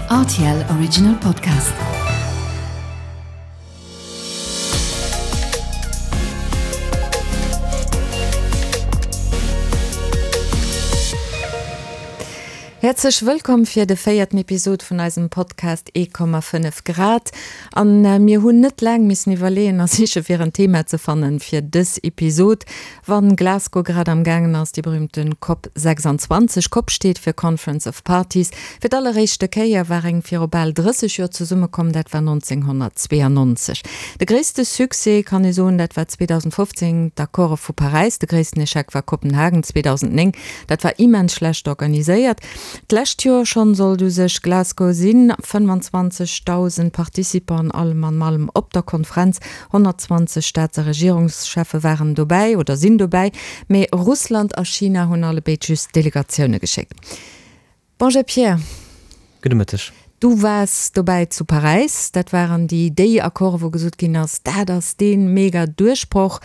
Rtl Original Podcast. Häerzlech wëllkomm fir de véierten Episod vun eisem Podcast 1,5 Grad. An mir hunn net laang missen iwwerleeën a siche fir en Thema ze fannen fir dës Episod. Wann Glasgow grad am gaangen ass, déi berühmten Cop 26, Cop steet fir Conference of Parties, fir d'alleréischte Kéier war eng viru bal 30 Joer zesummekomm, dat war 1992. De gréisste Succès, kann ee soen, dat war 2015 d'Accorde vu Paräis, de gréissten Echec war Kopenhagen 2009, dat war immens schlecht organiséiert. D'lescht Joer schonn sollt u sech Glasgow sinn, 25.000 Participanten allem an allem op der Konferenz, 120 Staats a Regierungscheffe waren dobäi oder sinn dobäi, mee Russland a China hunn allebéid just Delegatioune geschéckt. Bonjour Pierre. Gudde Mëtteg. Du waars dobäi zu Paräis. Dat waren déi déi Accorde wou gesot ginn ass, dat ass dee mega Duerchbroch.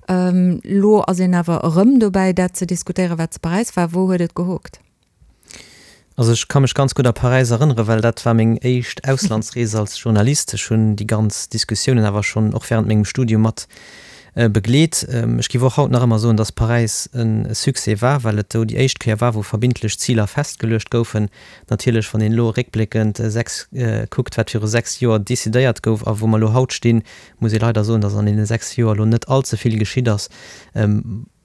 Elo ass een awer erëm dobäi dat ze diskutéieren, wat zu Paräis war. Wou huet et gehookt? Also ech ka mech ganz gutt a Paräis erënneren, well dat war meng éischt Auslandsrees als Journalist. Ech hunn déi ganz Diskussiounen awer schonn och während mengem Studium mat begleet. Ech géif och haut nach ëmmer soen, dass Paräis e Succès war, well et do déi éischt Kéier war, wou verbindlech Ziler festgeluecht goufen. Natierlech, wann een elo réckbléckend 6 kuckt, wat viru 6 Joer decidéiert gouf a wou mer elo haut stinn, muss ee leider soen, dass an deene 6 Joer elo net all ze vill geschitt ass.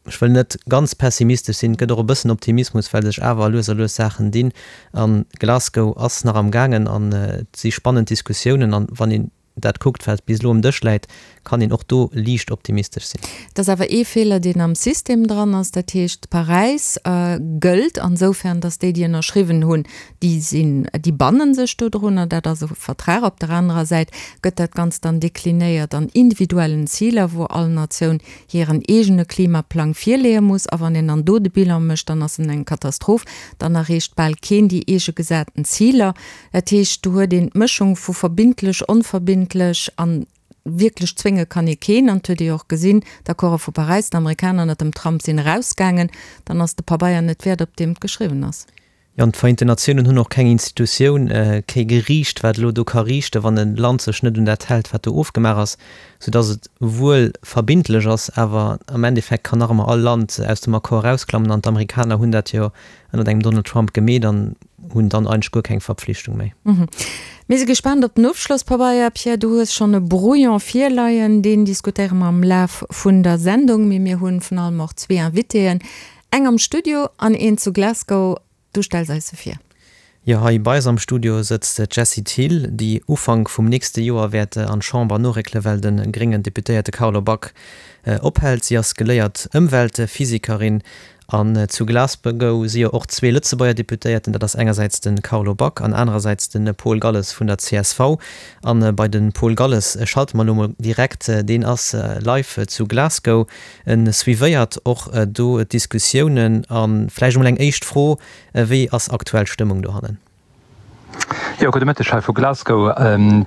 Ech wëll net ganz pessimistesch sinn, et gëtt och e bëssen Optimismus, well sech awer lues a lues Saachen dinn. A Glasgow ass nach am gaangen an et si spannend Diskussiounen. An wann een dat kuckt, wat bis elo um Dësch läit, kann een och do liicht optimistesch sinn. Et ass awer ee Feeler, deen am System dran ass. Dat heescht, Paräis gëllt ansoufern, datt déi, déi ënnerschriwwen hunn, déi sinn, déi banne sech dodrunner. Dat ass e Vertrag. Op der anerer Säit gëtt dat Ganzt dann deklinéiert an individuellen Ziler, wou all Natioun hiren eegene Klimaplang virleeë muss, a wann een dann do de Bilan mécht, dann ass en eng Katastroph, dann erreecht bal keen déi eege gesaten Ziler. Dat heescht, do huet een d'Mëschung vu verbindlech, onverbindlech a wierklech zwénge kann ee keen. An et huet ee jo och gesinn, d'Accorde vu Paräis, d'Amerikaner ënnert dem Trump sinn erausgaangen, dann ass de Pabeier net wäert, op deem et geschriwwen ass. Jo, an d'Vereenten Natiounen hunn och keng Institutioun, kee Geriicht, wat elo do ka riichten, wann e Land sech net un dat hält, wat do ofgemaach ass, soudass et wuel verbindlech ass, awer am Endeffekt kann nach ëmmer all Land aus dem Accord erausklammen. An d'Amerikaner hunn dat jo ënnert engem Donald Trump gemeet an hunn dann eigentlech guer keng Verpflichtung méi. Mir si gespaant op den Ofschlosspabeier. Pierre, du hues schonn e Brouillon virleien, deen diskutéiere mer am Laf vun der Sendung. Mee mir hunn vun allem och zwee Invitéen, Eng am Studio an een zu Glasgow. Du stells eis se vir. Jo, hei bei eis am Studio sëtzt d'Jessie Thill, déi Ufank vum nächste Joer wäert an d'Chamber noréckele well de gréngen Deputéierte Carlo Back ophält. Si ass geléiert Ëmweltphysikerin an zu Glasgow si jo och zwee Lëtzebuerger Deputéierten, dat ass engersäits de Carlo Back an anerersäits de Paul Galles vun der csv. An bei de Paul Galles schalte mer elo mol direkt, deen ass live zu Glasgow. En suivéiert och do d'Diskussiounen. A vläicht emol eng éischt Fro, Wéi ass aktuell d'Stëmmung dohannen? Jo, gudde Mëtteg hei vu Glasgow.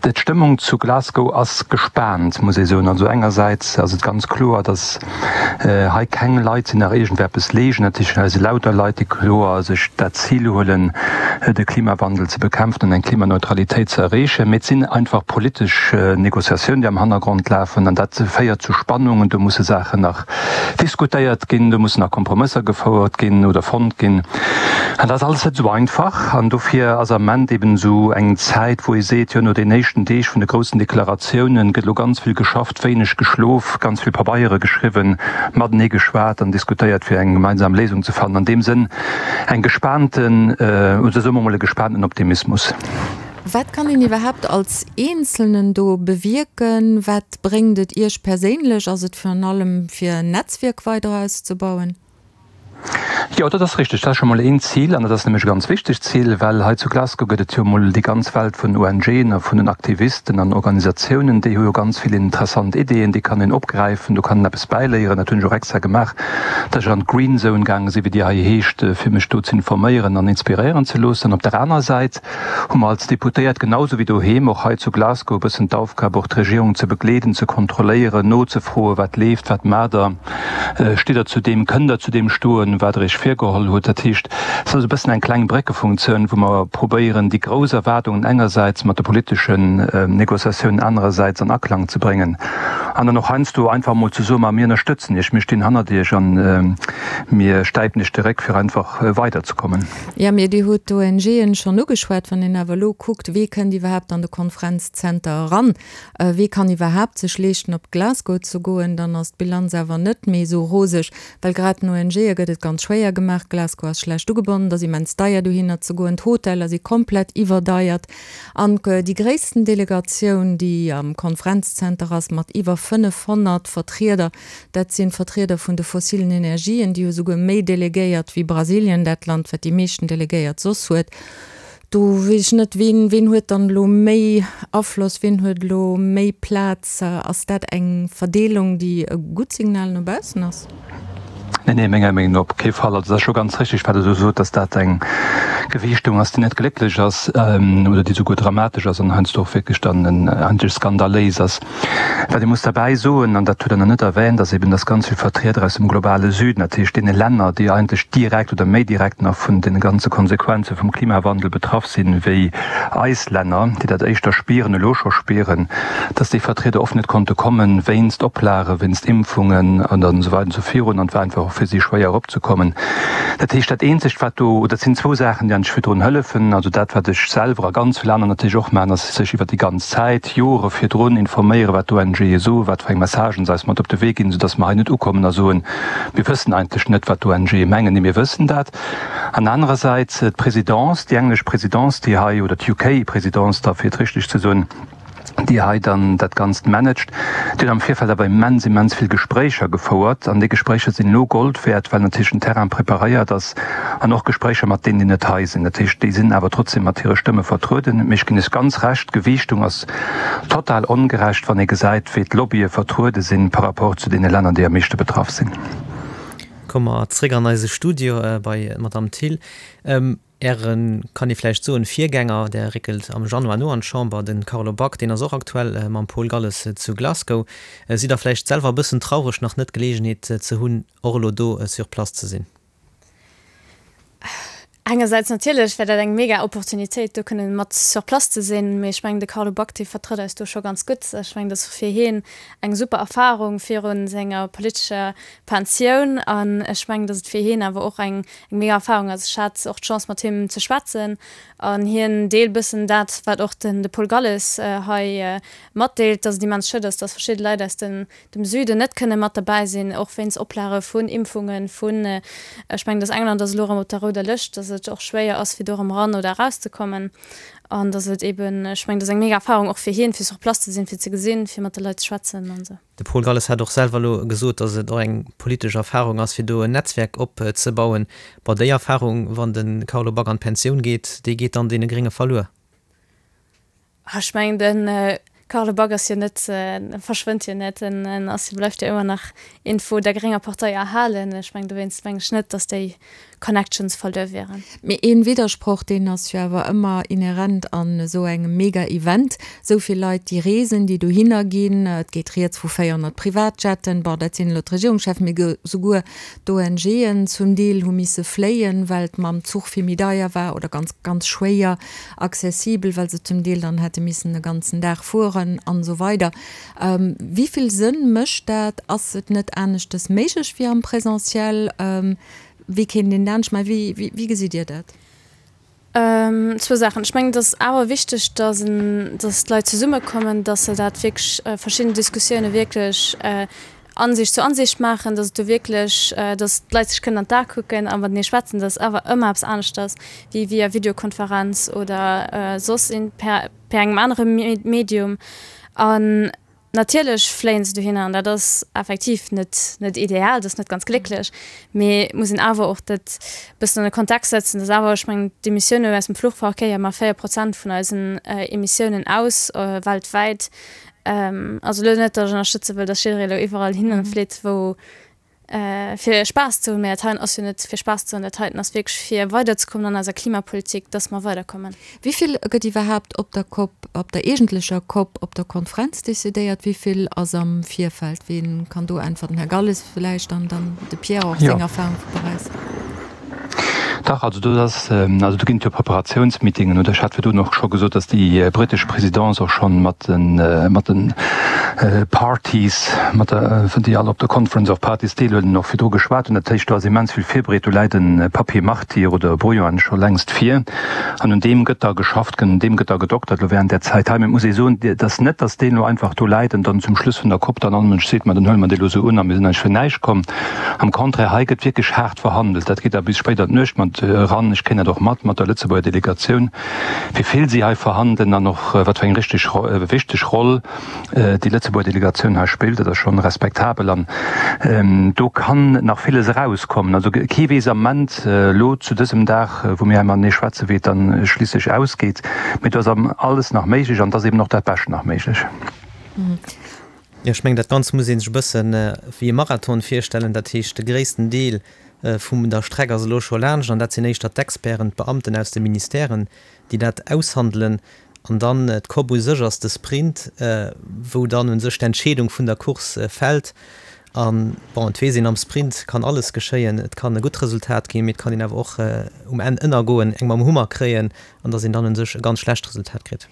D'Stëmmung zu Glasgow ass gespaant, muss ee soen. Also engersäits ass et ganz kloer, datt hei keng Leit sinn, nach iergendeppes leegnen. Dat heescht, hei si lauter Leit, déi kloer sech dat Zil huelen, de Klimawandel ze bekämpfen an eng Klimaneutralitéit ze erreechen. Mee et sinn einfach politesch Negociatiounen, déi am Hannergrond lafen an dat féiert zu Spannungen. Do musse Saachen nach diskutéiert ginn, do mussen nach Kompromësser gefouert ginn oder fonnt ginn. An dat ass alles net esou einfach. An dofir ass am Ament eben esou eng Zäit, wou ee seet, jo no den éischten Deeg vun de groussen Deklaratiounen gëtt elo ganz vill geschafft, wéineg geschlof, ganz vill Pabeiere geschriwwen, matenee geschwat an diskutéiert, fir eng gemeinsam Léisung ze fannen. An deem Sënn eng gespaanten, oder soe mer emol e gespaanten Optimismus. Wat kann een iwwerhaapt als Eenzelnen do bewierken? Wat bréngt et Iech perséinlech? Ass et virun allem fir en Netzwierk weider auszebauen? Jo, dat ass richteg. Dat ass scho mol een Zil an dat ass nämlech e ganz wichtegt Zil, well hei zu Glasgow gëtt et jo mol déi ganz Welt vun ONGen a vun den Aktivisten an Organisatiounen, déi hu jo ganz vill interessant Ideeën, déi kann een opgräifen, do kann een eppes bäiléieren. Dat hunn ech och extra gemaach, dass ech an d'Green Zone gaange sinn, wéi déi hei heescht, fir mech do ze informéieren an inspiréieren ze loossen. Op der anerer Säit hu mer als Deputéiert, genau sou wéi doheem, och hei zu Glasgow e bëssen d'Aufgab, och d'Regierung ze begleeden, ze kontrolléieren, nozefroen, wat leeft, wat maacht Der, stitt Der zu deem, kënnt Der zu deem stoen. soen, wat Der Iech virgeholl hutt. Dat heescht, et ass e bëssen eng kleng Bréckefunktioun, wou mer probéieren, déi grouss Erwaardungen engersäits mat de politeschen Négociatiounen anerersäits an Aklang ze bréngen an dann och heiansdo einfach emol ze soen, Ma mir ënnerstëtzen Iech, mir stinn hannert Iech a mir stäipen Iech de Réck, fir einfach weiderzekommen. Jo, mee Dir hutt d'ONGen schonn ugeschwat. Wann een awer elo kuckt, wee kënnt iwwerhaapt an de Konferenzzenter eran, Wee kann iwwerhaapt sech leeschten op Glasgow ze goen? Dann ass d'Bilanz awer net méi esou roseg, well grad den ONGe gëtt et ganz schwéier gemaach. Glasgow ass schlecht ugebonnen, et ass immens deier dohinner ze goen, d'Hoteller si komplett iwwerdeiert an déi gréissten Delegatioun, déi am Konferenzzenter ass mat iwwer 500 Vertrieder, dat sinn d'Vertrieder vun de fossilen Energien, déi hu souguer méi Delegéiert wéi Brasilien, dat Land wat déi meeschten Delegéiert soss huet. Do weess ech net, ween, ween huet dann elo méi Afloss, ween huet elo méi Plaz? Ass dat eng Verdeelung, déi e gutt Signal no baussen ass? Nee, nee, menger Meenung no op kee Fall. Also et ass scho ganz richtig, wat Der do sot, dass dat eng Gewiichtung ass, déi net glécklech ass oder déi souguer dramatesch ass an heiansdo och wierklech dann eigentlech skandaléis ass. Wat ee muss derbäi soen, an dat hutt Der nach net erwähnt, ass eben, dass ganz vill Vertrieder aus dem globale Süden, dat heescht deene Länner, déi eigentlech direkt oder méi direkt nach vun de ganze Konsequenze vum Klimawandel betraff sinn, wéi eis Länner, déi dat éischter spieren, elo scho spieren, dass déi Vertrieder oft net konnte kommen, wéinst Oplage, wéinst Impfungen an esou weider an esou virun. An et war einfach och fir si schwéier eropzekommen. Dat heescht, dat Eenzegt, wat do, oder et sinn zwou Saachen, déi eigentlech virdrun hëllefen, also dat, wat ech selwer a ganz vill aner natierlech och maachen, ass sech iwwert déi ganz Zäit, Jore virdrun informéieren, wat d'ONGe soen, wat fir eng Messagen se eis mat op de Wee ginn, soudass mer hei net ukommen a soen, mir wëssen eigentlech net, wat d'ONGe mengen. Nee, mir wëssen dat. An anerersäits d'Présidence, déi englesch Présidence, déi hei, oder d'UK-Présidence da, fir et richteg ze soen, déi hei dann dat Ganzt managt, déi huet am Virfeld awer immens, immens vill Gespréicher gefouert. An déi Gespréicher sinn elo Gold wäert, well natierlech den Terrain preparéiert ass an och Gespréicher mat deenen, déi net hei sinn. Dat heescht, déi sinn awer trotzdem mat hire Stëmme vertrueden. Mee ech ginn Iech ganz Recht, d'Gewiichtung ass total ongerecht, wann ee gesäit, wéi d'Lobbye vertruede sinn par rapport zu deene Länner, déi am meeschte betraff sinn. Komme mer zréck an eise Studio bei d'Madame Thill. Äre, kann ee vläicht soen, Virgänger, där réckelt am Januar no an d'Chamber, de Carlo Back, deen ass och aktuell mam Paul Galles zu Glasgow. Sidd Der vläicht selwer e bëssen traureg, nach net d'Geleegenheet ze hunn, och elo do sur place ze sinn? Engersäits natierlech wär dat eng mega Opportunitéit, do kënnen mat sur place ze sinn, mee ech mengen, de Carlo Back, dee vertrëtt eis do scho ganz gutt. Ech mengen, dat ass fir hien eng super Erfarung viru senger politescher Pensioun an ech mengen, datt et fir hien awer och eng mega Erfarung ass. Ech hat och d'Chance, mat him ze schwätzen an hien deelt bëssen dat, wat och den de Paul Galles hei matdeelt, datt et immens schued ass, datt verschidde Leit aus den dem Süden net kënne mat derbäi sinn, och wéinst Oplage vun Impfungen, vun, ech mengen, datt England ass elo erëm op der rouder Lëscht, datt et och schwéier ass, fir do erëm eran oder erauszekommen an datt et eeben, ech mengen, dat ass eng mega Erfahrung och fir hien, fir sur place ze sinn, fir ze gesinn, fir mat de Leit ze schwätzen an esou. De Paul Galles hat och selwer elo gesot, datt et och eng politesch Erfahrung ass, fir do en Netzwerk opzebauen. Bon, déi Erfahrung, wann de Carlo Back an d'Pensioun geet, déi geet dann deene Grénge verluer. Ech mengen de Carlo Back ass jo net, verschwënnt jo net, en ass jo, bleift jo ëmmer nach iergendwou der grénger Partei erhalen. Ech mengen dowéinst mengen ech net, datt déi Connections verluer wieren. Mee een Widdersproch, deen ass jo awer ëmmer inhärent an esou engem Mega-Event, esou vill Leit déi reesen, déi dohinner ginn, et geet rieds vu 400 Privatjetten, bon dat sinn elo d'Regierungscheffen, mee souguer d'ONGen zum Deel hu misse fléien, well et mam Zuch vill méi deier war oder ganz, ganz schwéier accessibel, well se zum Deel dann hätte missen e ganzen Dag fueren an esou weider. Wéi vill Sënn mécht dat? Ass et net aneschtes méiglech wéi am Présentiel? Wéi kéint een dat anescht maachen? Wéi, wéi gesitt Dir dat? Zwou Saachen. Ech mengen, et ass awer wichteg, dass en, dass d'Leit zesummekommen, dass se dat wierklech, verschidden Diskussioune wierklech Ansicht zu Ansicht maachen, dass et do wierklech, dass d'Leit sech kënnen an d'A kucken a matenee schwätzen. Dat ass awer ëmmer eppes aneschters wéi via Videokonferenz oder soss per per engem anere Medium. An natierlech fléien se dohinner an dat ass effektiv net net ideal, dat ass net ganz glécklech, mee et muss een awer och dat bëssen an de Kontext setzen, dass awer, ech mengen, d'Emissiounen aus dem Fluchverkéier maache 4 Prozent vun eisen Emissiounen aus weltwäit. Also elo net, datt ech ënnerstëtze wëll, datt jidderee elo iwwerall hinne flitt, wou. Fir Spaass ze hunn, mä dat heien ass jo net fir Spaass ze hunn, dat heiten ass wierklech fir weiderzekommen an eiser Klimapolitik, dass mer weiderkommen. Wéi vill gëtt iwwerhaapt op der Cop, op der eegentlecher Cop, op der Konferenz decidéiert? Wéi vill ass am Virfeld? Wien kann do äntwerten? Här Galles vläicht an dann de Pierre och seng Erfahrung vu Paräis. Dach, also do ass, also do ginn et jo Preparatiounsmeetingen, oder ech hat virdrun och scho gesot, datt déi britesch Présidence och schonn mat de mat de Parties, mat der, déi all op der Conference of Parties deelhuelen, och virdru geschwat hunn. Dat heescht, do ass immens vill virbereet. Do läit e Papier martyr oder e Brouillon scho längst vir an un deem gëtt da geschafft, un deem gëtt da gedoktert elo während där Zäit hei. Mä et muss ee soen, et ass net, datt deen elo einfach do läit an dann zum Schluss vun der Cop dann all Mënsch seet, ma dann huele mer dee elo esou un a mir sinn eigentlech fir näischt komm. Am Contraire, hei gëtt wierklech haart verhandelt. Dat geet da bis spéit an d'Nuecht mat eran. Ech kréien dat och mat, mat der Lëtzebuerger Delegatioun, wéi vill si hei verhandelen an och wat fir eng richteg, wichteg Roll déi Lëtzebuerger Delegatioun hei spillt. Dat ass schonn respektabel an do kann nach villes erauskommen. Also kee weess am Ament elo zu dësem Dag, wou mir hei matenee schwätzen, wéi et dann schliisslech ausgeet. Mee do ass alles nach méiglech an et ass eben och dat Bescht nach méiglech. Jo, ech mengen, dat Ganzt muss ee sech e bësse wéi e Marathon virstellen. Dat heescht, de gréissten Deel vum der Streck ass elo scho laanscht an dat sinn éischter d'Experten, d'Beamten aus de Ministèren, déi dat aushandelen. An dann d'COP u sech ass de Sprint, wou dann u sech d'Entscheedung vun der Course fält. An, bon, et weess een, am Sprint kann alles geschéien. Et kann e gutt Resultat ginn, mee et kann een awer och um Enn ënnergoen, eng mam Hummer kréien an datt een dann u sech e ganz schlecht Resultat kritt.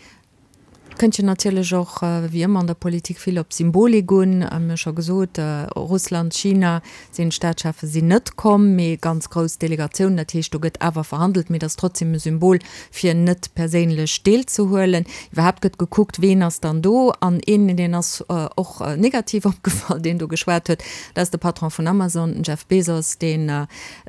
Kënnt jo natierlech och, wéi ëmmer an der Politik, vill op Symbolik un. Mir hu scho gesot, Russland, China sinn, d'Staatscheffe sinn net komm, mee ganz grouss Delegatiounen. Dat heescht, do gëtt awer verhandelt, mee et ass trotzdem e Symbol, fir net perséinlech deelzehuelen. Iwwerhaapt gëtt gekuckt, ween ass dann do. An een, deen ass och negativ opgefall, deen do geschwat huet, dat ass de Patron vun Amazon, den Jeff Bezos, deen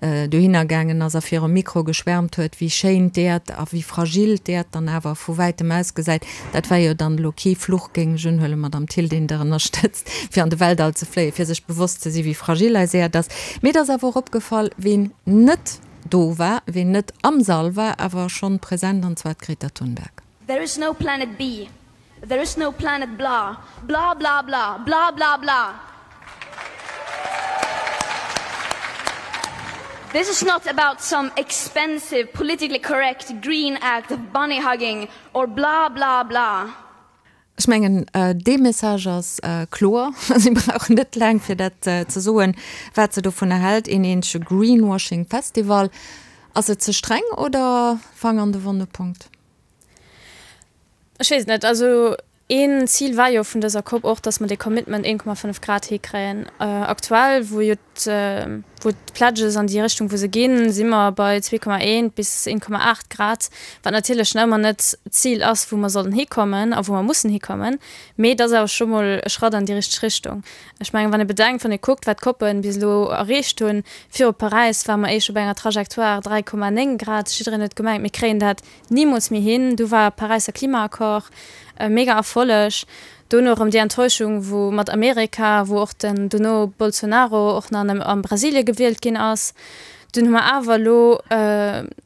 dohinner gaangen ass a virum Mikro geschwärmt huet, wéi schéin d'Äerd a wéi fragil d'Äerd dann awer vu wäitem ausgesäit. Dat war jo dann elo kee Fluch, géing ech unhuelen, Madamm Thill, deen Der ënnerstëtzt, fir an de Weltall ze fléien, fir sech bewosst ze sinn, wéi fragil eis Äerd ass. Mee et ass awer och opgefall, ween net do war, ween net am Sall war, awer schonn present, an zwar d'Greta Thunberg. There is no planet B. There is no planet blah, blah blah blah, blah blah blah. This is not about some expensive, politically correct green act of bunny hugging or blah blah blah. Ech mengen, dee Message ass kloer. Si brauchen net laang, fir dat ze soen, wat se dovunner hält. Een eenzege Greenwashing-Festival. Ass et ze streng oder Fang an de wonne Punkt? Ech weess et net. Also een Zil war jo vun dëser Cop och, datt mer dee Commitment 1,5 Grad hikréien. Aktuell, wou jo wou d'Pledges an déi Richtung wou se ginn, si mer bei 2,1 bis 1,8 Grad, wat natierlech nach ëmmer net d'Zil ass, wou mer sollen hikommen a wou mer mussen hikommen. Mee et ass awer scho mol e Schratt an déi richteg Richtung. Ech mengen, wann ee bedenkt, wann ee kuckt, wat d'Copen bis elo erreecht hunn, viru Paräis ware mer éischt op enger Trajectoire 3,9 Grad, jiddereen huet gemengt, mir kréien dat Nimools méi hin. Du war Paräisser Klimaaccord e mega Erfolleg. Dono erëm déi Enttäuschung wou mat Amerika, wou och den dono Bolsonaro och nach an Brasilie gewielt ginn ass. Dunn hu mer awer elo,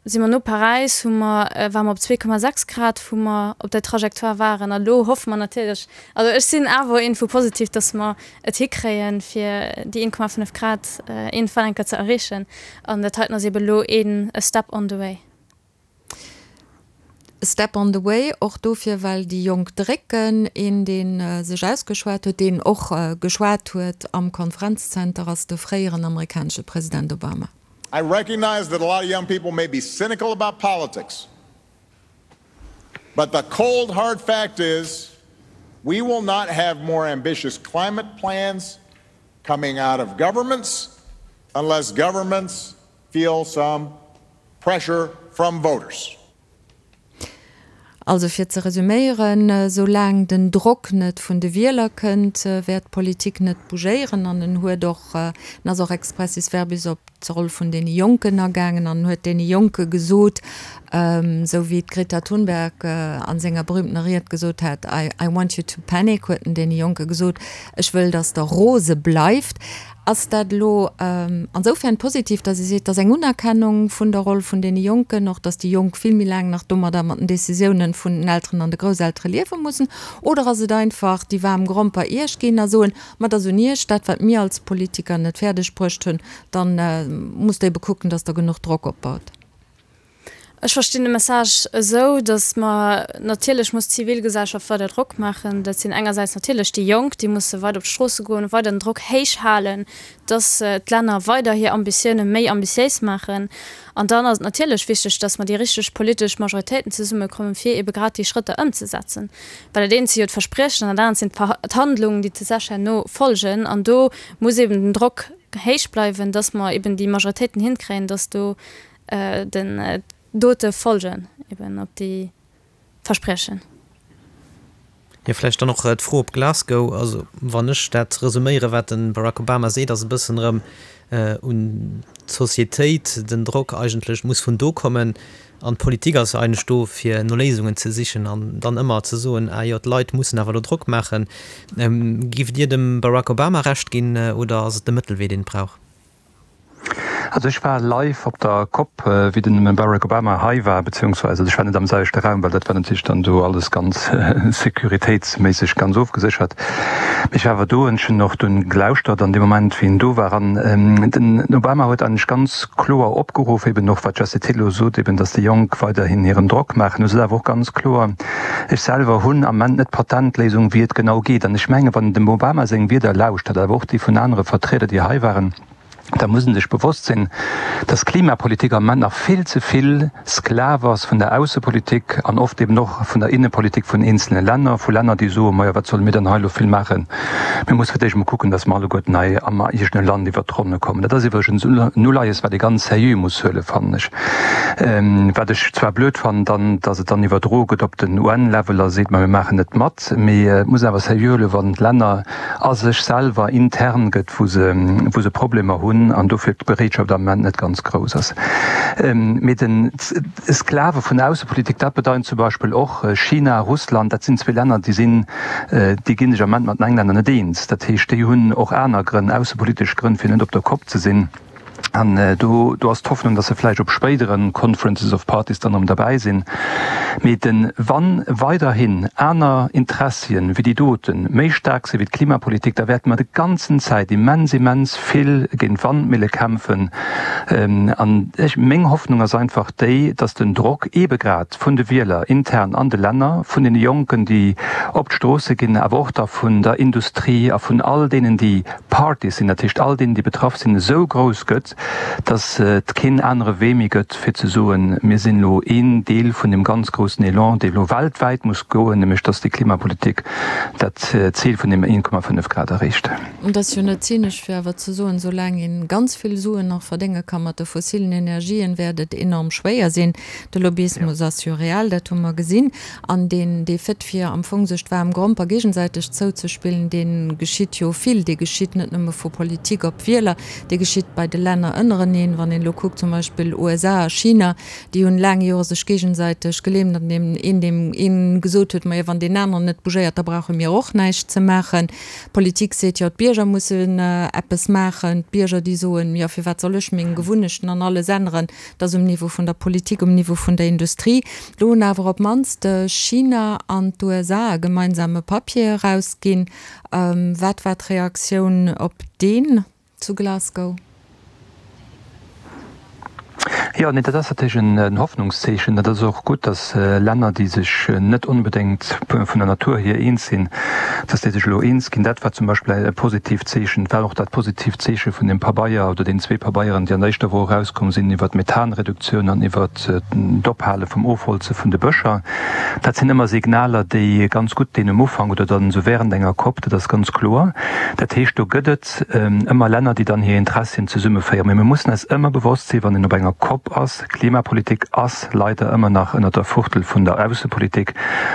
si mer no Paräis, hu mer, ware mer op 2,6 Grad wou mer op der Trajectoire waren. A lo hoffe mer natierlech, also ech sinn awer iergendwou positiv, datt mer et hikréien, fir déi 1,5 Grad iergendwann eng Kéier ze erreechen. An dat heiten ass eeben elo een a step on the way. A step on the way, och dofir, well déi Jonk drécken. Een, dee sech ausgeschwat huet, deen och geschwat huet am Konferenzzenter, ass de fréieren amerikanesche President Obama. I recognize that a lot of young people may be cynical about politics, but the cold hard fact is we will not have more ambitious climate plans coming out of governments unless governments feel some pressure from voters. Also fir ze resuméieren, Soulaang den Drock net vun de Wieler kënnt, wäert d'Politik net bougéieren. An en huet och, en ass och expressis verbis op d'Roll vun deene Jonken agaangen an huet deene Jonke gesot. Esou wéi d'Greta Thunberg a senger berühmtener Ried gesot hat, I, I want you to panic, huet en deene Jonke gesot, ech wëll, datt der rose bleift. Ass dat elo ansoufern positiv, datt ee seet, et ass eng Unerkennung vun der Roll vun deene Jonken, och datt déi Jonk vill méi laang nach domadder mat den Decisiounen vun den Elteren an de Grousseltere liewe mussen? Oder ass et einfach déi waarm Gromper Iech ginn a soen, ma et ass un Iech, dat wat mir als Politiker net fäerdeg bruecht hunn, da musst Der ebe kucken, datt Der genuch Drock opbaut? Ech verstinn de Message esou, datt mer, natierlech muss d'Zivilgesellschaft weider Drock maachen. Dat sinn engersäits natierlech déi Jonk, déi musse weider op d'Stroosse goen, weider den Drock héich halen, datt d'Länner weider hir Ambitioune méi ambitiéis maachen. An dann ass et natierlech wichteg, datt mer déi richteg politesch Majoritéiten zesummekommen, fir ebe grad déi Schrëtter ëmzesetzen. Well dat eent si jo d'Verspriechen an dat anert sinn d'Handlungen, déi tatsächlech herno folgen. An do muss eben den Drock héich bleiwen, datt mer eben déi Majoritéiten hinkréien, datt do den Dote folgen eben op déi Verspriechen. Jo, vläicht dann och d'Fro op Glasgow. Also wann ech dat resuméieren, wat de Barack Obama seet, ass e bëssen erëm un d'Societéit, den Drock eigentlech muss vun do kommen. An d'Politik ass jo eigentlech do, fir no Léisungen ze sichen an dann ëmmer ze soen, ah jo, d'Leit mussen awer elo Drock maachen. Giff Dir dem Barack Obama Recht ginn oder ass et de Mëttelwee, deen et brauch? Also ech war live op der Cop, wéi den Barack Obama hei war, beziehungsweise ech war net am selwechte Raum, well dat war natierlech dann do alles ganz sécuritéitsméisseg ganz ofgeséchert. Mee ech war awer do an ech hunn och dunn gelauschtert an deem Moment, wéi en do war. An den Obama huet eigentlech ganz kloer opgeruff, eben och wat d'Jessie Thill elo sot, eben datt déi Jonk weiderhin hiren Drock maachen. Hu sot awer och ganz kloer, Ech selwer hunn am Ament net d'Patentléisung, wéi et genau geet. An ech mengen, wann een dem Obama seng Wierder lauschtert, awer och déi vun anere Vertrieder, déi hei waren, da muss ee sech bewosst sinn, dass Klimapolitik am Ament nach vill ze vill Sklav ass vun der Aussepolitik an oft eben och vun der Innepolitik vun eenzelne Länner, vu Länner, déi soen, Majo, wat solle mir dann hei elo vill maachen? Mir musse fir d'éischt emol kucken, dass mer alleguerten hei am eegene Land iwwert d'Ronne kommen. Dat ass iwwregens en Uleies, wat ee ganz seriö muss huelen, fannen ech. Wat ech zwar blöd fannen dann, dass et dann iwwerdroe gëtt op den UN-Level a seet, ma mir maachen net mat. Mee et muss een awer seriö huelen, wann d'Länner a sech selwer intern gëtt, wou se, wou se Problemer hunn an dofir d'Bereetschaft am Ament net ganz grouss ass. Mee den Sklave vun der Aussepolitik, dat bedeint zum Beispill och China, Russland, dat sinn zwee Länner, déi sinn, déi ginn sech am Ament mat den Englänner net eens. Dat heescht, déi hunn och aner Grënn, aussepolitesch Grënn, fir net op der Kopp ze sinn. An do, do ass d'Hoffnung, datt se vläicht op spéidere Conferences of Parties dann erëm derbäi sinn. Mee de wann weiderhin aner Interessien wéi déi doten méi staark si wéi d'Klimapolitik, da wäerte mer de ganzen Zäit immens, immens vill géint Wandmille kämpfen. An ech, meng Hoffnung ass einfach déi, datt den Drock eebe grad vun de Wieler intern an de Länner, vun deene Jonken, déi op d'Stroosse ginn, awer och da vun der Industrie a vun all deenen, déi Parties sinn, dat heescht all deenen, déi betraff sinn, esou grouss gëtt, datt et keen anere Wee méi gëtt, fir ze soen, mir sinn elo een Deel vun deem ganz groussen Elan, dee elo weltwäit muss goen, nämlech datt déi Klimapolitik dat Zil vun deem 1,5 Grad erreecht. Et ass jo net zynesch, fir awer ze soen, soulaang ee ganz vill Suen nach verdénge ka mat de fossilen Energien, wäert et enorm schwéier sinn. De Lobbyismus ass jo real, dat hu mer gesinn. An deen, dee Fait, fir am Fong sech d'waarm Gromper géigesäiteg zouzespillen, dee geschitt jo vill. Dee geschitt net nëmme vu Politik op Wieler, dee geschitt bei de Länner ënnereneen. Wann een elo kuckt, zum Beispill USA a China, déi hunn laang Jore sech géigesäiteg gelähmt, an deem een deem een gesot huet, majo, wann deen aneren net bougéiert, da brauche mir och näischt ze maachen. D'Politik seet, jo, d'Bierger mussen eppes maachen. D'Bierger, déi soen, jo, firwat soll ech meng Gewunnechten an alles änneren? Dat ass um Niveau vun der Politik, um Niveau vun der Industrie. Do hunn awer op d'mannst China an d'USA e gemeinsame Papier erausginn. Wat war d'Reaktioun op deen zu Glasgow? Jo, nee, dat ass natierlech en Hoffnungszeechen. Dat ass och gutt, datt Länner, déi sech net onbedéngt vun der Natur hier eens sinn, datt déi sech elo eens ginn. Dat war zum Beispill e positiivt Zeechen. Et war och dat positiivt Zeeche vun deem Pabeier oder deenen zwee Pabeieren, déi an der éischter Woch erauskomm sinn iwwert d'Methanreduktioun an iwwert d'Ophale vum Ofholze vun de Bëscher. Dat sinn ëmmer Signaler, déi ganz gutt dinn um Ufank oder dann esou während enger Cop, dat ass ganz kloer. Dat heescht, do gëtt et ëmmer Länner, déi dann hir Interessien zesummeféieren. Mee mir mussen eis ëmmer bewosst sinn, wann een op enger. COP ass. Klimapolitik ass leider ëmmer nach ënner der Fuchtel vun der Aussepolitik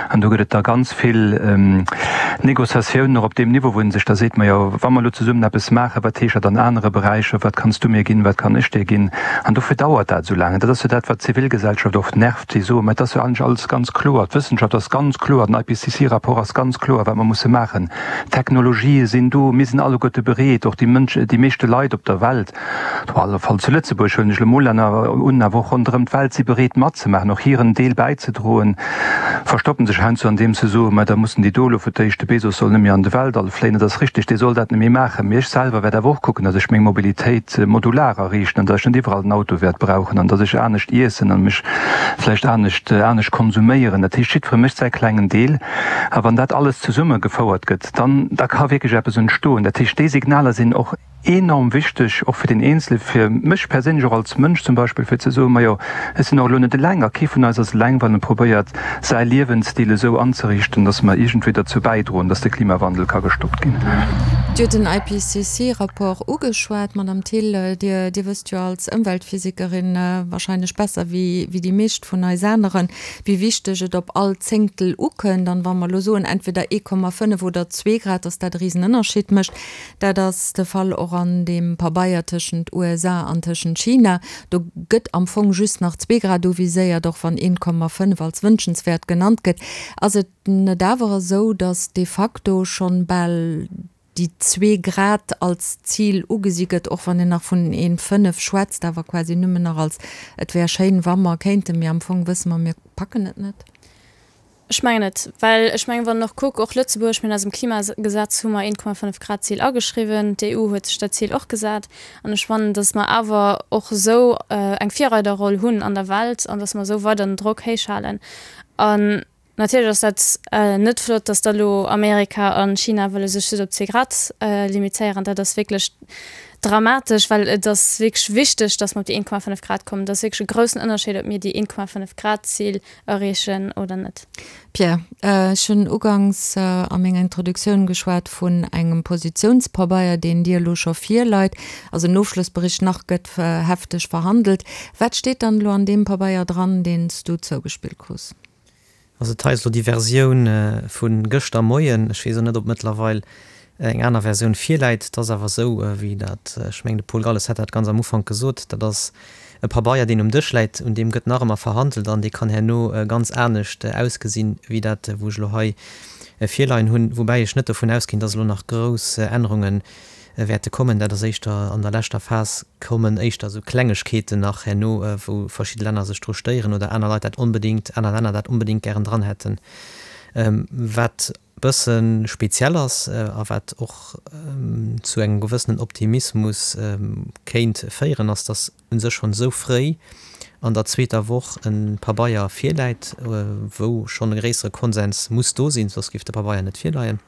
an do gëtt et da ganz vill Négociatiounen och op deem Niveau, wou ee sech da seet, majo wa mer elo zesummen eppes maachen, wat heescht dat an anere Beräicher, wat kanns du mir ginn, wat kann ech dir ginn? An dofir dauert dat esou laang. An dat ass jo dat, wat d'Zivilgesellschaft oft nervt, déi soen, mä et ass jo eigentlech alles ganz kloer, d'Wëssenschaft ass ganz kloer, den IPCC-Rapport ass ganz kloer, wat mer musse maachen, d'Technologië sinn do, mir sinn alleguerte bereet, och déi Mënsch, déi meeschte Leit op der Welt, Op alle Fall zu Lëtzebuerg, huelen ech elo mol Länner un, awer och ronderëm d'Welt si bereet matzemaachen, och hiren Deel bäizedroen, verstoppen sech heiansdo andeems se soen, mä da mussen déi do elo fir d'éischt, de Bezos soll net méi an de Weltall fléien. Dat ass richteg, dee soll dat net méi maachen, mee ech selwer wäert awer och kucken, datt ech meng Mobilitéit modular ariichten an datt ech net iwwerall den Auto wäert brauchen an datt ech anescht iessen an mech vläicht anescht anescht konsuméieren. Dat heescht, jiddweree mécht säi klengen Deel a wann dat alles zesummegefouert gëtt, dann da ka wierklech eppes entstoen. Dat heescht, déi Signaler sinn och. Enorm wichteg, och fir den Eenzele, fir mech perséinlech och als Mënsch zum Beispill, fir ze soen, majo, ech sinn och elo net eleng a kee vun eis ass eleng, wann e probéiert, säi Liewensstil esou anzeriichten, datt mer iergendwéi derzou bäidroen, datt de Klimawandel ka gestoppt ginn. Dir hutt den IPCC-Rapport ugeschwat, Madame Thill. Dir, Dir wësst jo als Ëmweltphysikerin wahrscheinlech besser wéi, wéi déi meescht vun eis aneren, wéi wichteg et op all Zéngtel ukënnt. An wa mer elo soen, entweder 1,5 oder zwee Grad, datt dat e Risenënnerscheed mécht. Dat ass de Fall och an deem Pabeier tëschent USA an tëschent China. Do gëtt am Fong just nach 2 Grad uviséiert, och wann 1,5 als wënschenswäert genannt gëtt. Ass et net awer esou, datt de facto schonn bal déi zwee Grad als Zil ugesi gëtt, och wann een nach vun 1,5 schwätzt, awer quasi nëmmen nach als et wär schéin, wa mer kéinten, mee am Fong wësse mer, mir packen et net? Ech mengen net, well ech mengen, wann een och kuckt, och Lëtzebuerg, mir hunn eisem Klimagesetz hu mer 1,5 Grad Zil ageschriwwen, d'EU huet sech dat Zil och gesat an ech fannen, datt mer awer och esou eng Virreiderroll hunn an der Welt an datt mer esou weider den Drock héich halen. An natierlech ass dat net flott, datt da lo Amerika a China wëlle sech just op 2 Grad limitéieren. Dat ass wierklech dramatesch, well et ass wierklech wichteg, datt mer op déi 1,5 Grad kommen. Et ass wierklech e groussen Ënnerscheed, ob mir déi 1,5 Grad Zil erreechen oder net. Pierre, ech hunn uganks a menger Introduktioun geschwat vun engem Positiounspabeier, deen dir elo scho virleit, also en Ofschlossbericht, nach gëtt hefteg verhandelt. Wat steet dann elo an deem Pabeier dran, deen s du zougespillt krus? Also et hei ass elo déi Versioun vu gëschter Moien. Ech weess och net, ob mëttlerweil eng aner Versioun virläit. Et ass awer esou, wéi dat, ech mengen de Paul Galles hat dat ganz am Ufank gesot, dat ass e Pabeier, deen um Dësch läit, un deem gëtt nach ëmmer verhandelt an dee kann herno ganz anescht ausgesinn, wéi dat, wou ech elo hei virleien hunn. Woubäi ech net dovun ausginn, dass elo nach grouss Ännerunge wäerte kommen. Dat ass éischter an der leschter Phas kommen éischter esou Klengegkeeten nach herno, wou verschidde Länner sech dru stéieren oder aner Leit dat onbedéngt, aner Länner dat onbedéngt gären dran hätten. Wat bësse speziell ass a wat och zu engem gewëssenen Optimismus kéint féieren, ass, datt u sech schonn esou fréi an der zweeter Woch e Pabeier virläit, wou schonn e gréissere Konsens muss do sinn, soss géif de Pabeier net virleien.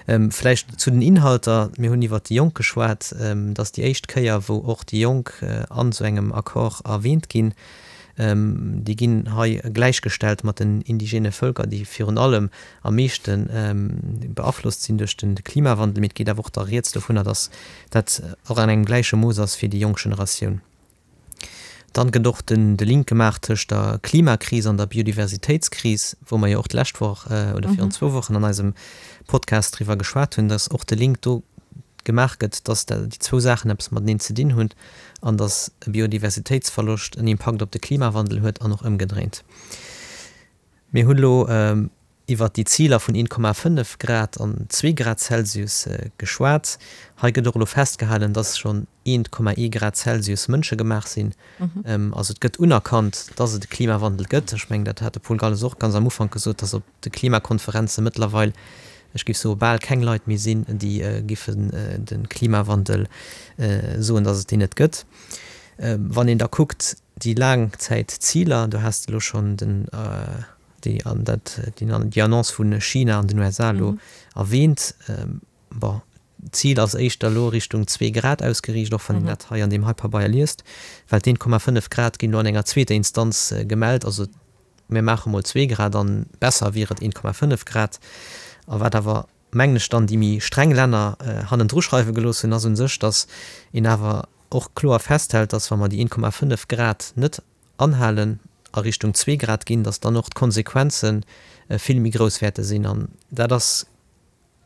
Vläicht zu den Inhalter, Mir hunn iwwert déi Jonk geschwat. Et ass déi éischt Kéier, wou och déi Jonk an esou engem Accord erwähnt ginn. Déi ginn hei gläichgestellt mat den indigene Vëlker, déi virun allem am meeschte beaflosst sinn duerch de Klimawandel. Mee et geet awer och da rieds dovunner, datt dat och an engem gläiche Mooss ass fir déi jonk Generatioun. Dann gëtt och den de Link gemaach tëscht der Klimakris an der Biodiversitéitskris, wou mer jo och d'lescht Woch oder virun zwou Wochen an eisem Podcast driwwer geschwat hunn, datt och de Link do gemaach gëtt, datt déi zwou Saachen eppes mateneen ze dinn hunn an datt e Biodiversitéitsverloscht en Impakt op de Klimawandel huet an och ëmgedréint. Mir hunn elo iwwert déi Ziler vun 1,5 Grad an zwee Grad Celsius geschwat. Hei gëtt och elo festgehalen, dass schonn 1,1 Grad Celsius mënschegemaach sinn. Also et gëtt unerkannt, dass et e Klimawandel gëtt. Ech mengen, dat hat de Paul Galles och ganz am Ufank gesot, dass op de Klimakonferenze mëttlerweil, ech géif soe bal keng Leit méi sinn, déi giffen de Klimawandel soen, dass et deen net gëtt. Wann een da kuckt, Déi Laangzäitziler, do has de elo schonn den, déi, an dat, déi Annonce vu China an den USA elo erwähnt. Bon, d'Zil ass éischter elo Richtung zwee Grad ausgeriicht, och wann een dat hei an deem hei Pabeier liest, well d'1,5 Grad ginn elo an enger zweeter Instanz gemellt. Also mir maache mol zwee Grad an besser wier et 1,5 Grad. A wat awer, mengen ech, dann déi méi streng Länner hannendru schreiwe gelooss hunn, ass u sech, datt een awer. och kloer festhält, dass wa mer déi 1,5 Grad net anhalen, a Richtung zwee Grad ginn, dass dann och d'Konsequenze vill méi grouss wäerte sinn. An dat ass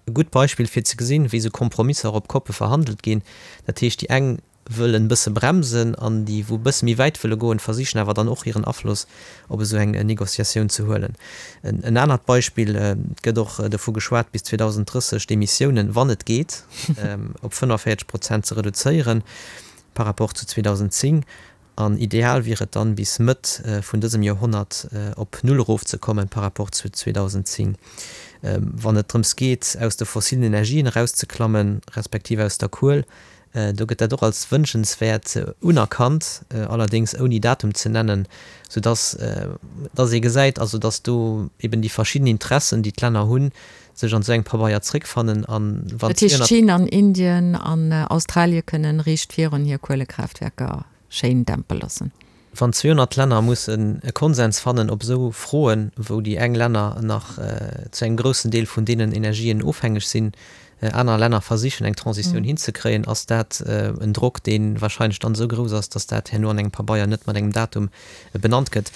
e gutt Beispill fir ze gesinn, wéi esou Kompromisser op Koppe verhandelt ginn. Dat heescht, déi eng wëllen e bësse bremsen an déi, wou e bësse méi wäit wëlle goen, versichen awer dann och hiren Afloss op esou eng Négociatioun ze huelen. En anert Beispill, Et gëtt och dovu geschwat, bis 2030 d'Emissiounen, wann et geet, op 45 Prozent ze reduzéieren par rapport zu 2010. An ideal wier et dann, bis Mëtt vun dësem Joerhonnert op Null erofzekommen par rapport zu 2010. Wann et drëms geet, aus de fossilen Energien erauszeklammen, respektiv aus der Kuel, do gëtt dat och als wënschenswäert unerkannt, allerdéngs ouni Datum ze nennen, soudass dass ee gesäit, also dass do eben déi verschidden Interessen, déi d'Länner hunn, sech an esou engem Pabeier zréckfannen. An wann Dat heescht, 200. China an Indien an Australie kënnen riicht virun hir Kuelekraaftwerker schéin dämpe loossen. Wann 200 Länner mussen e Konsens fannen op esou Froen, wou déi eng Länner nach zu engem groussen Deel vun deenen Energien ofhängeg sinn, aner Länner versichen eng Transitioun hinzekréien, ass dat en Drock, dee wahrscheinlech dann esou grouss ass, datt dat herno an engem Pabeier net mat engem Datum benannt gëtt.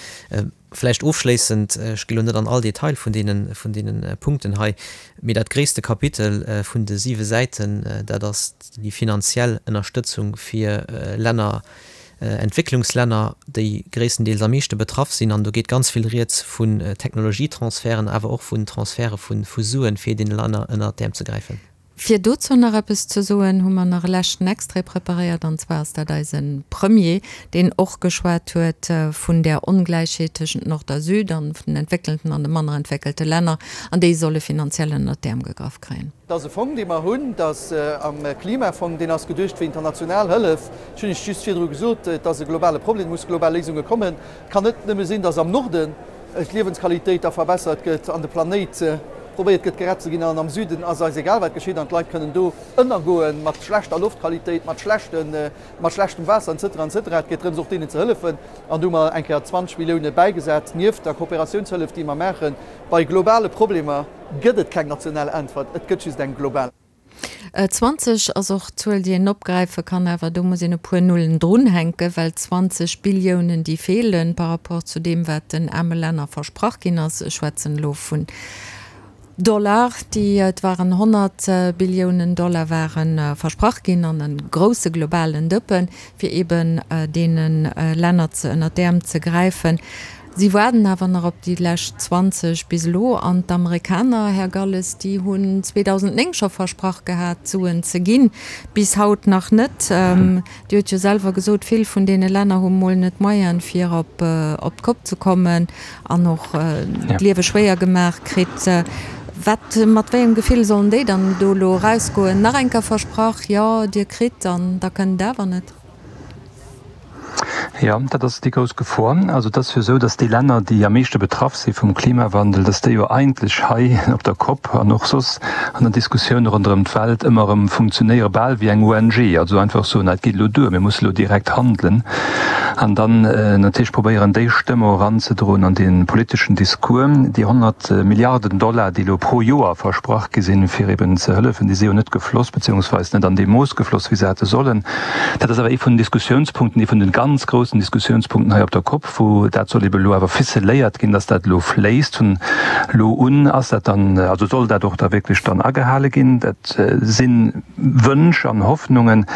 Vläicht ofschléissend, ech gi lo net an all Detail vun deene, vun deene Punkten hei, mee dat gréisste Kapitel vun de siwe Säiten, dat ass déi finanziell Ënnerstëtzung fir Länner, Entwécklungslänner, déi gréisstendeels am meeschte betraff sinn. An do geet ganz vill Rieds vun Technologietransferten, awer och vun Transferte vu Suen, fir deene Länner ënnert d'Äerm ze gräifen. Fir dozou nach eppes ze soen, hu mer nach e leschten Extrait preparéiert, an zwar ass dat eise Premier, deen och geschwat huet vun där Ongläichheet tëschent Nord a Süd an vun den entwéckelten an de manner entwéckelte Länner, an déi solle finanziell ënnert d'Äerm gegraff kréien. Dat ass e Fong, dee mer hunn, dat ass am Klimafong, deen ass geduecht fir international Hëllef. Ech hunn Iech just virdru gesot, et ass e globale Problem, et musse global Léisunge kommen. Et kann net nëmme sinn, datt am Norden d'Liewensqualitéit da verbessert gëtt an de Planéit probéiert gëtt gerett ze ginn an am Süden ass eis egal wat geschitt an d'Leit kënnen do ënnergoen mat schlechter Loftqualitéit, mat schlechten, mat schlechtem Waasser etc. Etc. Et geet drëms och deenen ze hëllefen an do hu mer eng Kéier 20 Millioune bäigesat nieft der Kooperatiounshëllef déi mer maachen. Bei globale Problemer gëtt et keng national Äntwert, et gëtt just eng global. 20 ass och d'Zuel, déi een opgräife kann, awer do muss een e puer Nullen drunhänken, well 20 Billiounen, déi feelen par rapport zu deem, wat den aarme Länner versprach ginn ass, ech schwätzen elo vun Dollar, déi, et waren 100 Billiounen Dollar ware versprach ginn an e grousse globalen Dëppen, fir eeben deene Länner ze ënner d'Äerm ze gräifen. Si waarden awer nach op déi lescht 20 bis elo. An d'Amerikaner, Här Galles, déi hunn 2009 scho versprach gehat, Suen ze ginn. Bis haut nach net. Dir hutt jo selwer gesot, vill vun deene Länner hu mol net d'Moyene fir op d'Kopp ze kommen an och d'Liewe schwéier gemaach kritt. Wat, mat wéi engem Gefill sollen déi dann do elo erausgoen? Nach eng Kéier versprach, jo, Dir kritt, an da kënnt et awer net. Jo, dat ass déi grouss Gefor. Also et ass jo esou, datt déi Länner, déi am meeschte betraff si vum Klimawandel, datt déi jo eigentlech hei op der Kopp an och soss an der Diskussioun ronderëm d'Welt ëmmer erëm funktionéiere bal wéi eng ONG, also einfach soen, et geet elo duer, mir musse elo direkt handelen an dann natierlech probéieren, déi Stëmm och eranzedroen an dee politeschen Discours. Déi 100 Milliarden Dollar, déi elo pro Joer versprach gi sinn, fir eben ze hëllefen, déi si jo net gefloss, beziehungsweis net an deem Mooss gefloss, wéi se hätte sollen. Dat ass awer ee vun den Diskussiounspunkten, ee vun de ganz groussen Diskussiounspunkten hei op der Cop, wou dat soll ebe elo awer ficeléiert ginn, dass dat elo fléisst. Vun elo un ass dat dann, also soll dat och da wierklech dann agehale ginn. Dat si Wënsch an Hoffnungen.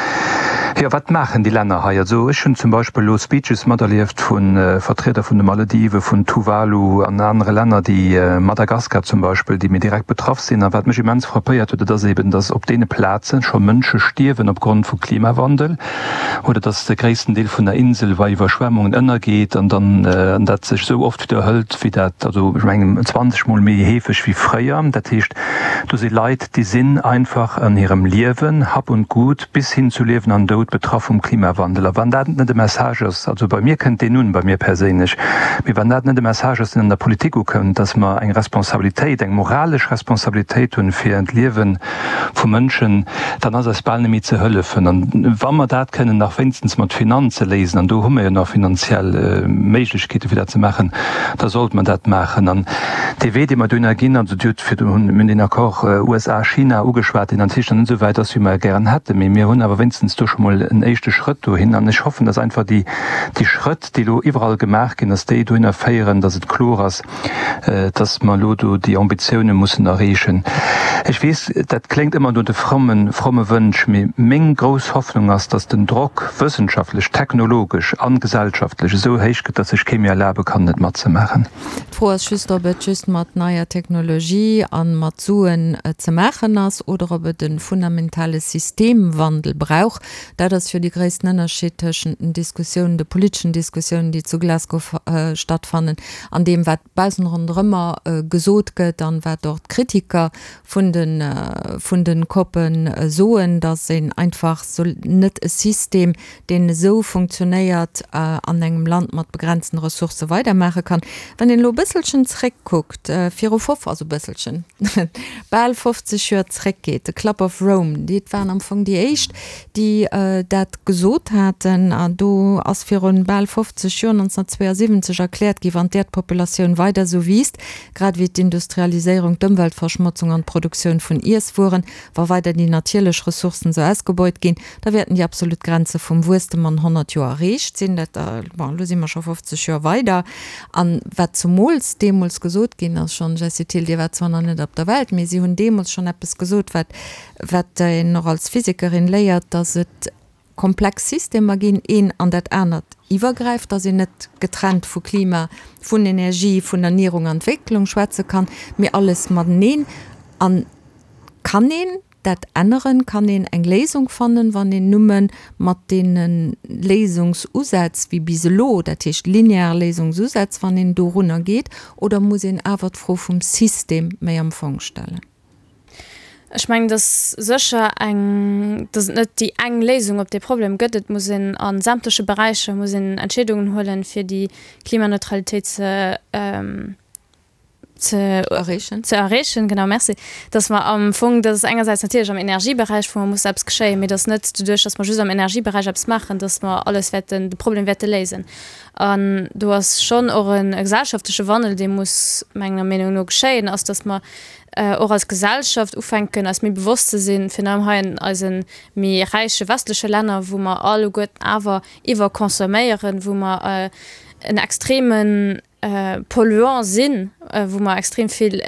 Jo, wat maachen déi Länner hei? Also ech hunn zum Beispill elo Speeches materlieft vu Vertrieder vun de Malediven, vun Tuvalu an anere Länner, déi, Madagaskar zum Beispill, déi méi direkt betraff sinn. A wat mech immens frappéiert huet, dat ass eben, dass op deene Plaze scho Mënsche stierwen opgrond vu Klimawandel oder dass de gréissten Deel vun der Insel bei Iwwerschwemmungen ënnergeet an dann an dat sech esou oft widderhëlt wéi dat, also ech mengen 20 mol méi heefeg wéi fréier. Dat heescht, do si Leit, déi sinn einfach an hirem Liewen, Hab und Gut bis hin zu Liewen an Doud betraff vum Klimawandel. A wann dat net e Message ass, also bei mir kënnt deen un, bei mir perséinlech, mee wann dat net e Message ass, deen an der Politik ukënnt, dass mer eng Responsabilitéit, eng moralesch Responsabilitéit hunn fir d'Liewe vu Mënschen, dann ass eis bal net méi ze hëllefen. An wa mer dat kënnen nach wéinstens mat Finanze léisen, an do hu mer jo nach finanziell Méiglechkeete fir dat ze maachen, da sollte mer dat maachen. An dee Wee, dee mer dohinner ginn, also Dir hutt virdrun, mir hunn deen Accord USA-China ugeschwat, deen natierlech nach net esou wäit ass, wéi mer e gären hätten, mee mir hunn awer wéinstens do scho mol. mol en éischte Schrëtt dohin. An ech hoffen, dass einfach déi, déi Schrëtt, déi elo iwwerall gemaach ginn, dass déi dohinner féieren, dass et kloer ass, dass mer elo do déi Ambitioune mussen erreechen. Ech weess, dat kléngt ëmmer no de frommen, fromme Wënsch, mee meng grouss Hoffnung ass, dass den Drock wëssenschaftlech, technologesch an gesellschaftlech esou héich gëtt, dass sech kee méi erlabe kann, net matzemaachen. D'Fro ass just, ob et just mat neier Technologie a mat Suen ze maachen ass oder ob et e fundamentale Systemwandel brauch. Dat ass jo dee gréissten Ënnerscheed tëschent den Diskussiounen, de politeschen Diskussiounen, déi zu Glasgow stattfannen, an deem, wat baussen ronderëmmer gesot gëtt an wat och d'Kritiker vun de vun de COPen soen, datt een einfach net e System, deen esou funktionéiert, an engem Land mat begrenzten Ressourcë weidermaache kann. Wann een elo e bësselchen zréckkuckt, viru fof, also bësselchen, bal 50 Joer zréckgeet, de Club of Rome, déi waren am Fong déi éischt, déi dat gesot haten, an do ass virun bal 50 Joer, 1972, erkläert gi, wann d'Äerdpopulatioun weider esou wiisst, grad ewéi d'Industrialiséierung, d'Ëmweltverschmotzung an d'Produktioun vun Iesswueren, wa weider déi natierlech Ressourcen esou ausgebeut ginn, Da wäerten déi absolut Grenze vum Wuesstem an 100 Joer erreecht sinn. Dat, bon, elo si mer scho 50 Joer weider. An wat zemools deemools gesot ginn ass schonn, Jessie Thill, Dir waart zwar nach net op der Welt, mee si hunn deemools schonn eppes gesot, wat, wat een och als Physikerin léiert, dass et komplex Systemer ginn, een an dat anert iwwergräift, dass een net getrennt vu Klima, vun Energie, vun Ernierung an Entwécklung schwätze kann, mee alles mateneen. An kann een Dat änneren? Kann een eng Léisung fannen, wann een numme mat deene Léisungsusätz wéi bis elo, dat heescht linear Léisungsusätz, wann een dorunner geet, oder muss een awer d'Fro vum System méi am Fong stellen? Ech mengen, dass sécher eng, dass et net déi eng Léisung op dee Problem gëtt. Et muss een a sämtleche Beräicher muss een Entscheedungen huelen, fir déi Klimaneutralitéit ze ze erreechen, ze erreechen, genau, merci, dass mer am Fong, dass engersäits natierlech am Energieberäich, wou mer muss eppes geschéien, mee dass net doduerch, dass mer just am Energieberäich eppes maachen, dass mer alles wäerten, de Problem wäerte léisen. An do ass schonn och e gesellschaftleche Wandel, dee muss menger Meenung no geschéien, ass, dass mer och als Gesellschaft ufänken, eis méi bewosst ze sinn, virun allem hei an eise méi räiche westleche Länner, wou mer alleguerten awer iwwerconsomméieren, wou mer en extremen Polluant sinn, wou mer extrem vill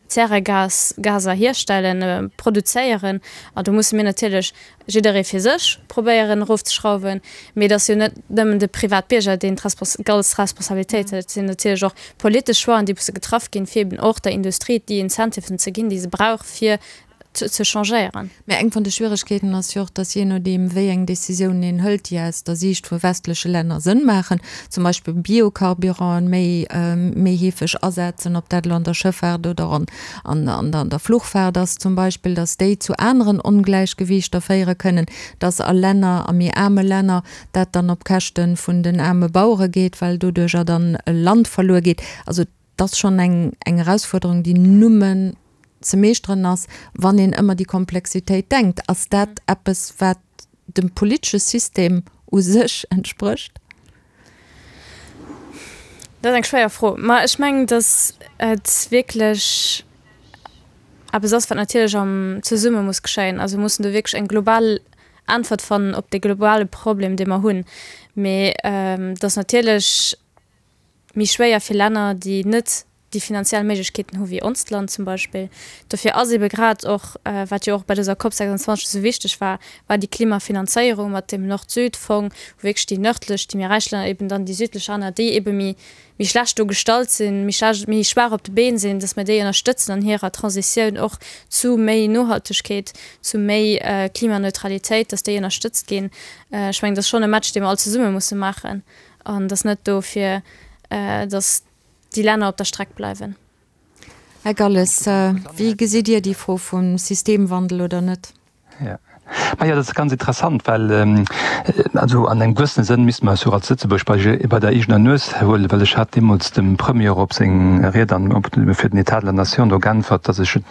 Zäregasgaser hierstellen, produzéieren. An do musse mir natierlech jidderee fir sech probéieren erofzeschrauwen. Mee et ass jo net nëmmen de Privatbierger, deen d'ganz Responsabilitéit huet. Et sinn natierlech och politesch Choixen, déi musse getraff ginn, fir eben och der Industrie déi Incentiven ze ginn, déi se brauch, fir ze changéieren. Mä eng vun de Schwieregkeeten ass jo och, dass jee nodeem wéi eng Décisiounen een hëlt, déi aus der Siicht vu westleche Länner Sënn maachen, zum Beispill Biocarburanten méi méi heefeg asetzen, ob dat elo an der Schëffaart oder an an der Fluchfaart ass zum Beispill, dass déi zu aneren Ongläichgewiichter féiere kënnen, dass a Länner, a méi aarme Länner, dat dann op Käschte vun den aarme Bauere geet, well doduercher dann Land verluer geet. Also Et ass schonn eng Erausfuerderung, déi nëmmen ze meeschteren ass, wann een ëmmer déi Komplexitéit denkt. Ass dat eppes, wat dem politesche System u sech entsprécht? Dat ass eng schwéier Fro. Ma ech mengen, datt et wierklech eppes ass, wat natierlech am zesumme muss geschéien. Also mir mussen do wierklech eng global Äntwert fannen op dee globale Problem, dee mer hunn. Mee datt natierlech méi schwéier fir Länner, déi net déi finanziell Méiglechkeeten hu wéi onst Land zum Beispill. Dofir ass ebe grad och, wat jo och bei dëser Cop 26 esou wichteg war, war déi Klimafinanzéierung mat deem Nord-Süd-Fong, wou wierklech déi nërdlech, déi méi räich Länner eben dann déi südlech Länner, déi ebe méi méi schlecht do gestallt sinn, méi schlecht, méi schwaach op de Been sinn, datt mer déi ënnerstëtzen an hirer Transitioun och zu méi Nohaltegkeet, zu méi Klimaneutralitéit, datt déi ënnerstëtzt ginn. Ech mengen, dat ass schonn e Match, dee mer all zesumme musse maachen. An et ass net do fir, datt déi Länner op der Streck bleiwen. Här Galles, wéi gesitt Dir déi Fro vum Systemwandel oder net? Jo, majo, dat ass ganz interessant, well also an engem gewëssene Sënn misste mer eis jo och als Lëtzebuerg bei bei der eegener Nues huelen, well ech hat deemools dem Premier op seng Ried an op fir den État de la Nation do geäntwert, datt ech et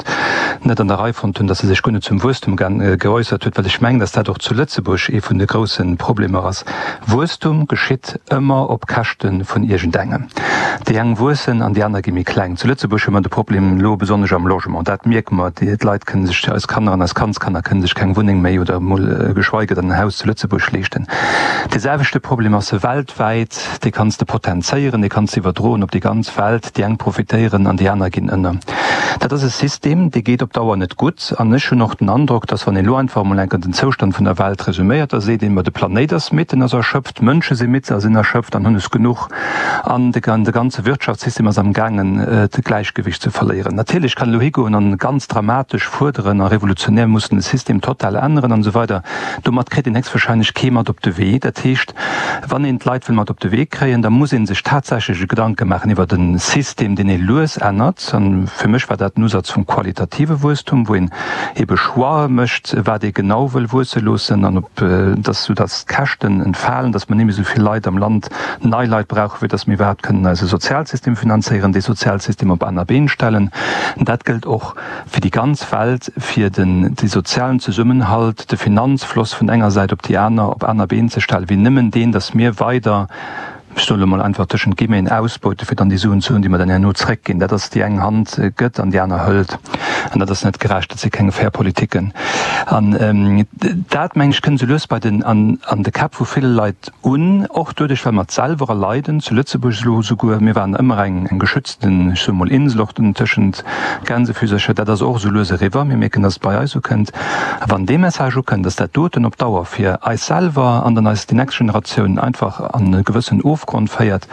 net an der Rei fonnt hunn, datt e sech guer net zum Wuesstum geäussert huet, well ech mengen, datt dat och zu Lëtzebuerg ee vun de grousse Problemer ass. Wuesstum geschitt ëmmer op Käschte vun iergendengem. Déi eng wuessen an déi aner gi méi kleng. Zu Lëtzebuerg hu mer de Problem elo besonnesch am Logement. Dat mierke mer. D'Leit kënne sech, eis Kanner an eis Kandskanner kënne sech keng Wunneng méi. méi oder emol geschweige dann en Haus zu Lëtzebuerg leeschten. Dee selwechte Problem ass weltwäit, dee kanns de potenzéieren, dee kanns de iwwerdroen op déi ganz Welt, déi eng profitéieren an déi aner ginn ënner. Dat ass e System, dee geet op Dauer net gutt an ech hunn och den Androck, dass wann een elo einfach emol enker den Zoustand vun der Welt resuméiert, da seet een, ma de Planéit ass midd, en ass erschöpft, d'Mënsche si midd a sinn erschöpft an hunn es genuch an de ganze Wirtschaftssystem ass am gaangen d'Gläichgewicht ze verléieren. Natierlech kann elo higoen an ganz dramatesch fuerderen a revolutionär mussen de System total änneren an esou weider. Domat kritt een héchstwahrscheinlech kee mat op de Wee. Dat heescht, wann een d'Leit wëll mat op de Wee kréien, da muss ee sech tatsächlech e Gedanke maachen iwwert e System, deen ee lues ännert. A fir mech war dat den Usaz vum qualitative Wuesstum, wou een ebe Choixë mécht, wat ee genau wëll wuesse loossen an ob, dass, soudass d'Käschten entfalen, dass mer net méi esou vill Leit am Land, nei Leit brauchen, fir dass mir iwwerhaapt kënnen eise Sozialsystem finanzéieren, dee Sozialsystem op aner Been stellen. Dat gëllt och fir déi ganz Welt, fir den de sozialen Zesummenhalt, de Finanzfloss vun enger Säit op déi aner op aner Been ze stellen, wéi nëmmen deen, dass mir weider, ech soen elo mol einfach tëschent Guillemeten, ausbeute fir dann déi Suen ze hunn, déi mer dann herno zréckginn. Dat ass, déi eng Hand gëtt an déi aner hëlt. An dat ass net gerecht, dat si keng fair Politiken. An dat, mengen ech, kënnt esou lues bei den, an de Käpp vu ville Leit un, och doduerch, well mer et selwer erleiden, zu Lëtzebuerg elo esouguer, mir waren ëmmer eng, eng geschützten, ech soe mol Insel, och tëschent Gänsefüsercher, dat ass och esou lues eriwwer, mir mierken, dass et bei eis ukënnt. A wann dee Message ukënnt, dass dat doten op Dauer fir eis selwer an dann eis déi nächst Generatioun einfach an e gewëssen Ofgrond féiert,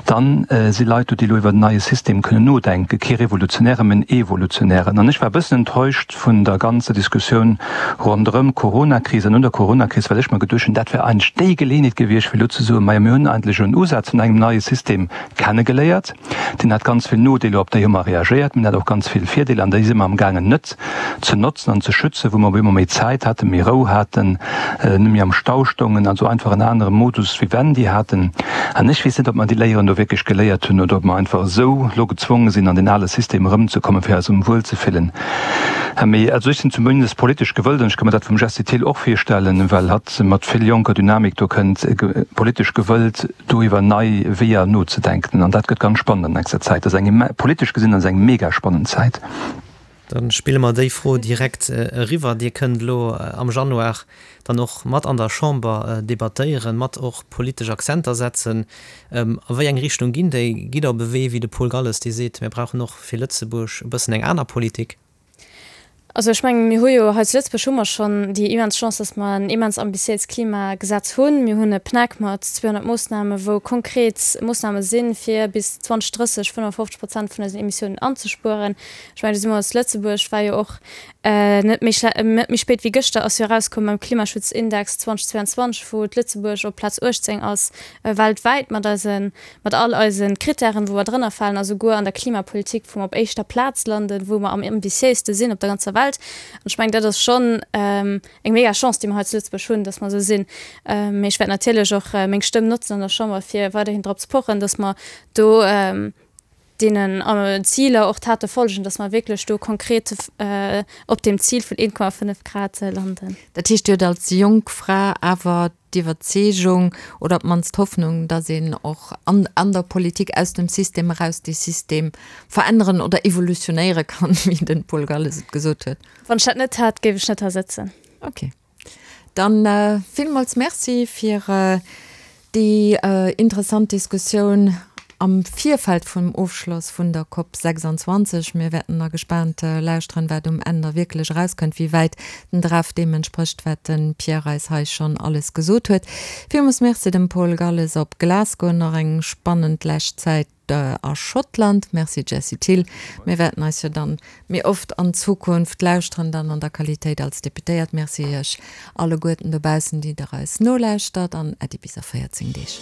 dann si Leit do, déi elo iwwer en neie System kënnen nodenken, kee revolutionären, mä en evolutionären. An ech war e bëssen enttäuscht vun der ganzer Diskussioun ronderëm d'Coronakris an no der Coronakris, well ech mer geduecht hunn, dat wär eigentlech déi Geleeënheet gewiescht, fir elo ze soen, Majo, mir hunn eigentlech elo en Usaz vun engem neie System kennegeléiert, deen hat ganz vill Nodeeler, op déi hu mer reagéiert, mä en hat och ganz vill Virdeeler an déi si mer amgaangen net ze notzen an ze schützen, wou mer op eemol méi Zäit haten, méi Rou haten, net méi am Stau stoungen, also einfach en anere Modus vivendi haten. An ech weess net, ob mer déi Léieren do wierklech geléiert hunn oder ob mer einfach esou elo gezwonge sinn, an deen ale System erëmzekommen, fir eis erëm wuelzefillen. Mee also ech sinn zumindest politesch gewëllt, an ech ka mer dat vum Jessie Thill och virstellen, well hatt mat vill jonker Dynamik do kënnt, politesch gewëllt, do iwwer nei Weeër nozedenken. An dat gëtt ganz spannend an nächster Zäit. Dat ass eng, politesch gesinn ass eng mega spannend Zäit. Da spille mer déi Fro direkt eriwwer. Dir kënnt elo am Januar dann och mat an der Chamber debattéieren, mat och politesch Akzenter setzen. A wéi eng Richtung ginn déi? Gitt Der op e Wee wéi de Paul Galles, dee seet, mir brauchen och fir Lëtzebuerg e bëssen eng aner Politik? Also ech mengen, mir hu jo hei zu Lëtzebuerg hu mer schonn déi immens Chance, dass mer en immens ambitiéist Klimagesetz hunn. Mir hunn e PNAC mat 200 Moossnamen, wou konkret Moossname sinn, fir bis 2030 55 Prozent vun eisen Emissiounen anzespueren. Ech mengen, do si mer als Lëtzebuerg, war jo och net méi schle net méi spéit wéi gëschter ass jo erauskomm mam Klimaschutzindex 2022, wou d'Lëtzebuerg op Plaz 18 ass weltwäit mat eisen mat all eise Krittären, wou mer drënner falen, a souguer an der Klimapolitik, wou mer op éischter Plaz landen, wou mer am ambitiéiste sinn op der ganzer Welt. An ech mengen, dat ass schonn eng mega Chance, déi mer hei zu Lëtzebuerg hunn, dass mer esou sinn. Mee ech wäert natierlech och meng Stëmm notzen an der Chamber, fir weiderhin drop ze pochen, dass mer do deenen Ziler och Tate folgen, dass mer wierklech do konkret op deem Zil vun 1,5 Grad landen. Dat heescht, Dir hutt als jonk Fra awer d'Iwwerzeegung oder op d'mannst d'Hoffnung, datt een och an an der Politik aus dem System eraus dee System veränneren oder evolutionéiere kann, wéi den Paul Galles et gesot huet. Wann ech dat net hätt, géif ech net hei sëtzen. Ok. Dann villmools Merci fir déi interessant Diskussioun am Virfeld vum Ofschloss vun der Cop 26. Mir wäerten da gespaant lauschteren, wat um Enn da wierklech erauskënnt, wéi wäit den Draft deem entsprécht, wat de Pierre eis hei schonn alles gesot huet. Villmools Merci dem Paul Galles op Glasgow. Nach eng spannend lescht Zäit a Schottland. Merci Jessie Thill. Mir wäerten eis jo dann méi oft an Zukunft lauschteren, dann an der Qualitéit als Deputéiert. Merci Iech alleguerten dobaussen, déi der eis nolauschtert an Äddi bis a 14 Deeg.